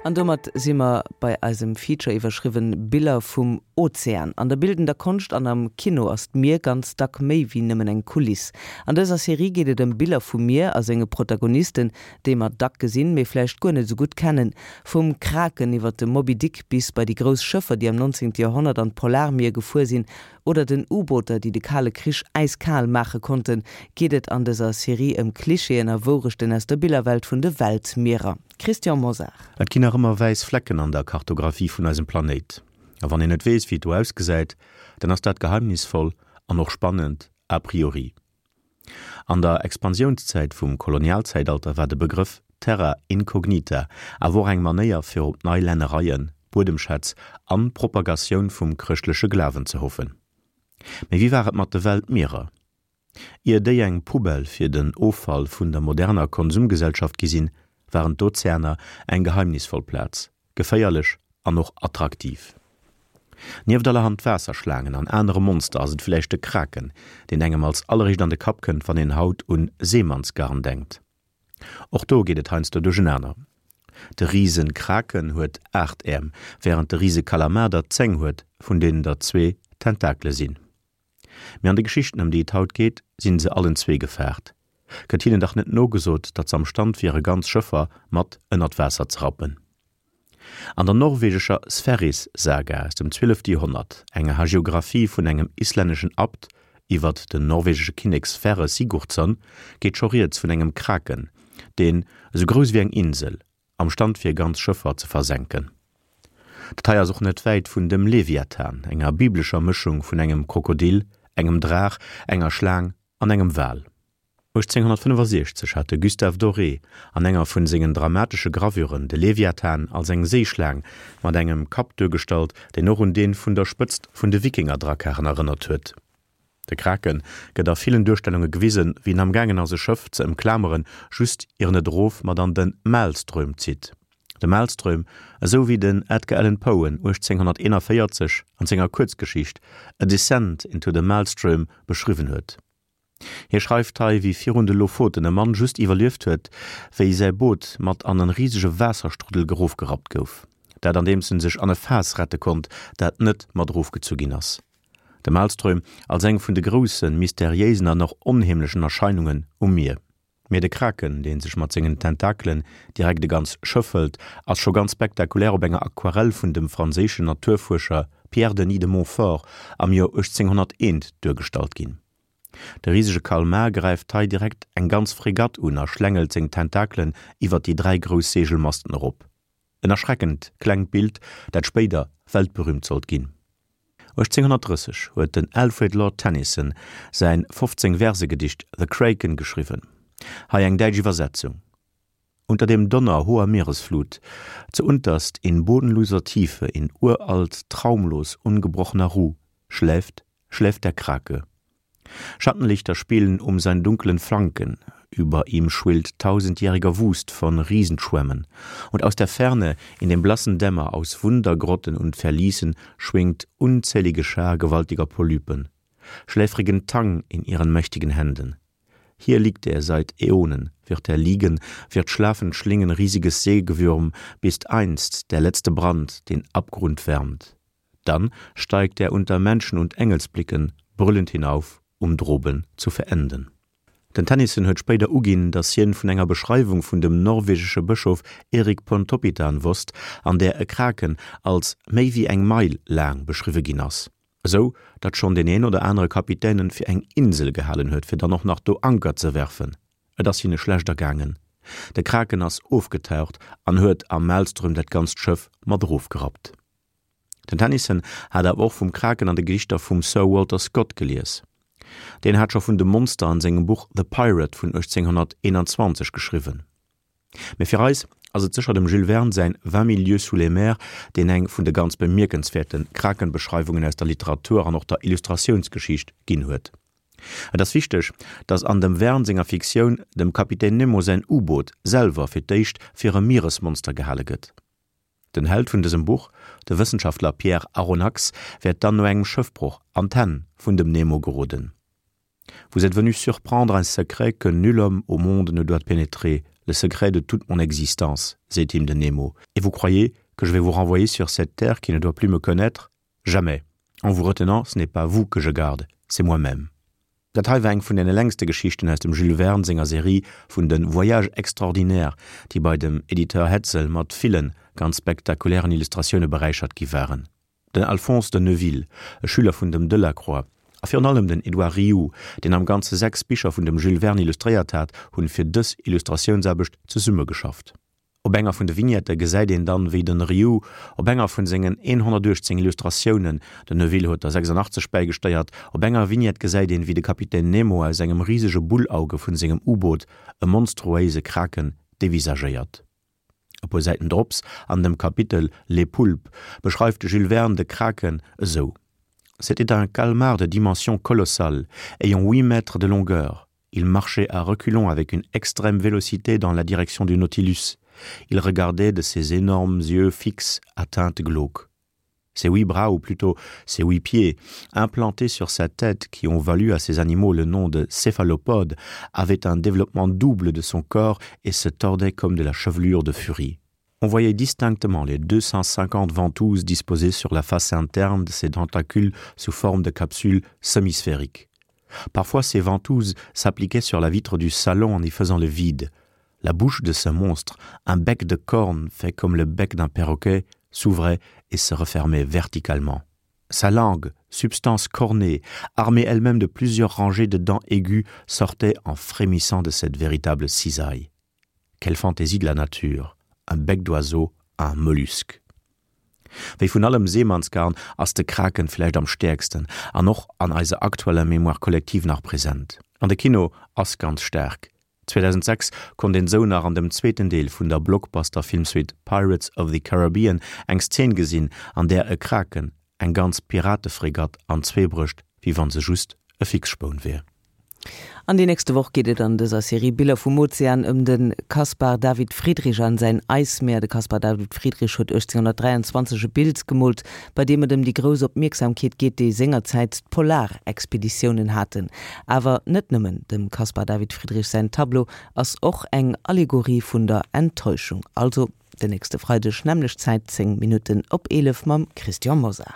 An domat si mer bei eisem Feature iwwerschriwwen Biller vum Ozean. An der bildender Konscht an am Kino ass d'Mier ganz dack méi wéi nëmmen eng Kuliss. An dëser Serie geet et ëm Biller vum Mier a senge Protagonisten, déi mer dack gesinn, mee vläicht guer net esou gutt kennen. Vum Kraken iwwer de Moby Dick bis bei déi grouss Schëffer, déi am 19. Joerhonnert an d'Polarmier gefuer sinn, oder den U-Booter, déi de Kale Krich äiskal maache konnten, geet et an dëser Serie ëm Klischeeën a Wourechten aus der Billerwelt vun de Weltmierer. Christian Mosar. Et ginn nach ëmmer wäiss Flecken an der Kartographie vun eisem Planéit. A wann een net weess, wéi et do ausgesäit, dann ass dat geheimnisvoll an och spannend a priori. An der Expansiounszäit vum Kolonialzäitalter war de Begrëff Terra incognita awer och eng Manéier fir op nei Lännereien, Buedemschätz an Propagatioun vum chrëschtleche Glawen ze hoffen. Mee wéi war et mat de Weltmierer? Ier déi eng Poubelle fir den Offall vun der moderner Konsumgesellschaft gi sinn, waren d'Ozeaner eng geheimnisvoll Plaz, geféierlech an och attraktiv. Nieft allerhand Waasserschlaangen an anere Monster ass et villäicht de Kraken, deen engem als alleréischt an de Kapp kënnt, wann een haut un Seemannsgarn denkt. Och do geet et heiansdo duerchenaner. De Risen-Kraken huet 8 Äerm, wärend de Rise-Kalamar der 10 huet, vun deenen der zwee Tentakele sinn. Mee an de Geschichten ëm déi et haut geet, sinn se allen zwee gefaart. Gëtt hinnen dach net nogesot, datt se am Stand wiere ganz Schëffer mat ënnert Waasser ze rappen. An der norwegescher Sverris-Saga aus dem 12. Joerhonnert, enger Hagiographie vun engem islänneschen Abt iwwert den norwegesche Kinnek Sverre Sigurdsson, geet scho rieds vun engem Kraken, deen, esou grouss ewéi eng Insel, am Stand wier ganz Schëffer ze versenken. Dat hei ass och net wäit vun dem Leviathan, enger biblescher Mëschung vun engem Krokodil, engem Draach, enger Schlaang an engem Wal. 1865 hat de Gustave Doré an enger vun sengen dramatesche Gravuren de Leviathan als eng Séischlaang mat engem Kapp duergestallt, deen och un dee vun der Spëtzt vun de Wikingerdrakkaren erënnert huet. De Krake gëtt a villen Duerstellunge gewisen, wéi en amgaangen ass e Schëff ze ëmklameren, just ier en et erof mat an de Maelström zitt. De Maelström, esou wéi den Edgar Allan Poe en 1841 an senger Kuerzgeschicht A Descent into the Maelström beschriwwen huet. Hie schreift hei, wéi virun de Lofoten e Mann just iwwerlieft huet, wéi säi Boot mat an en risege Waasserstruddel gerofgerappt gouf. Dat andeems en sech an e Faass rette konnt, dat net mat erofgezu ginn ass. De Maelström als eng vun de groussen, mysteriéisen an och onheemlechen Erscheinungen um Mier. Mee de Kraken, dee sech mat sengen Tentakelen direkt e ganz Schëff hëlt, ass scho ganz spektakulär op enger Aquarell vun dem franséischen Naturfuerscher Pierre Denis de Montfort am Joer 1801 duergestallt ginn. De risege Kalmar gräift hei direkt eng ganz Fregatt un a schlängelt seng Tentakelen iwwer déi 3 grouss Seegelmasten erop. En erschreckend klengt Bild, dat spéider weltberüümt sollt ginn. 1830 huet den Alfred Lord Tennyson säin 15 Verse-Gedicht The Kraken geschriwwen. Hei eng däitsch Iwwersetzung, Unter dem Donner hoher Meeresflut, zuunterst in bodenloser Tiefe, in uralt, traumlos ungebrochener Ruh, schläft, schläft der Krake. Schattenlichter spielen um seinen dunklen Flanken, über ihm schwillt tausendjähriger Wust von Riesenschwämmen, und aus der Ferne, in dem blassen Dämmer aus Wundergrotten und Verließen schwingt unzählige Schar gewaltiger Polypen, schläfrigen Tang in ihren mächtigen Händen. Hier liegt er seit Äonen, wird er liegen, wird schlafend schlingen riesiges Seegewürm, bis einst der letzte Brand den Abgrund wärmt. Dann steigt er unter Menschen und Engelsblicken brüllend hinauf, um droben zu verenden. Den Tennyson huet spéider uginn, datt hien vun enger Beschreiwung vun dem norwegesche Bëschof Erik Pontoppidan wosst, an där e Kraken als méi wéi eng Meil laang beschriwwe ginn ass, esou datt schonn deen een oder anere Kapitän en fir eng Insel gehalen huet, fir dann och nach do Anker ze werfen. Et ass hinne schlecht ergaangen. De Kraken ass ofgetaucht an huet am Maelström dat ganzt Schëff mat erofgerappt. Den Tennyson hat awer och vum Kraken an de Gedichter vum Sir Walter Scott gelies. Deen hat scho vun dem Monster an sengem Buch The Pirate vun 1821 geschriwwen. Mee fir eis ass et sécher dem Jules Verne säin Vingt mille lieues sous les mers, deen eng vun de ganz bemierkenswäerte Krakenbeschreiwungen aus der Literatur an och der Illustratiounsgeschicht ginn huet. Et ass wichteg, datt an dem Verne senger Fiktioun dem Kapitän Nemo säin U-Boot selwer fir d'éischt fir e Mieresmonster gehale gëtt. Den Held vun dësem Buch, de Wëssenschaftler Pierre Aronnax, wäert dann no engem Schëffbroch an d'Hänn vun dem Nemo geroden. Vous êtes venu surprendre un secret que nul homme au monde ne doit pénétrer, le secret de toute mon existence, seet him den Nemo, et vous croyez que je vais vous renvoyer sur cette terre qui ne doit plus me connaître? Jamais! En vous retenant, ce n'est pas vous que je garde, c'est moi-même. Dat hei war eng vun den längste Geschichten aus dem Jules Verne senger Serie vun de Voyages extraordinaires, déi bei dem Editeur Hetzel mat villen ganz spektakulären Illustratioune beräichert gi waren. Den Alphonse de Neuville, e Schüler vun dem Delacroix, a virun allem den Edouard Riou, deen am Ganze 6 Bicher vun dem Jules Verne illustréiert hat, hunn fir dës Illustratiounsaarbecht zesummegeschafft. Op enger vun de Vignette gesäit een dann, wéi den Riou op enger vun sengen 118 Illustratiounen, den Neuville huet der 86 bäigesteiert, op enger Vignette gesäit een, wéi de Kapitän Nemo aus engem risege Bullauge vun sengem U-Boot e monstruéise Kraken devisagéiert. E puer Säiten drops, an dem Kapitel Les Poulpes, beschreift de Jules Verne de Kraken esou, C'était un calmar de dimension colossale, ayant huit mètres de longueur. Il marchait à reculons avec une extrême vélocité dans la direction du Nautilus. Il regardait de ses énormes yeux fixes à teinte glauque. Ses huit bras, ou plutôt ses huit pieds, implantés sur sa tête qui ont valu à ces animaux le nom de céphalopodes, avaient un développement double de son corps et se tordaient comme de la chevelure de furie. On voyait distinctement les 250 ventouses disposées sur la face interne de ses tentacules sous forme de capsules semisphériques. Parfois ces ventouses s'appliquaient sur la vitre du salon en y faisant le vide. La bouche de ce monstre, un bec de corne fait comme le bec d'un perroquet, s'ouvrait et se refermait verticalement. Sa langue, substance cornée, armée elle-même de plusieurs rangées de dents aiguës, sortait en frémissant de cette véritable cisaille. Quelle fantaisie de la nature, un bec d'oiseau à un mollusque. Wéi vun allem Seemannsgarn ass de Kraken vläicht am stäerksten an och an eiser aktueller Mémoire collective nach present. An de Kino ass ganz staark. 2006 konnt een sou nach an dem zweeten Deel vun der Blockbuster-Filmsuite Pirates of the Caribbean eng Szen gesinn, an där e Kraken eng ganz Piratefregatt an zwee brécht, wéi wann se just e Fixspoun wier. An déi nächste Woch geet et an dëser Serie Biller vum Ozean ëm de Caspar David Friedrich an säin Eismeer. De Caspar David Friedrich huet 1823 e Bild gemoolt, bei deem et ëm déi grouss Opmierksamkeet geet, déi sengerzäit d'Polarexpeditiounen haten. Awer net nëmmen, dem Caspar David Friedrich säin Tableau ass och eng Allegorie vun der Enttäuschung. Also den nächste Freideg, nämmlecht Zäit, 10 Minutten op 11 mam Christian Mosar.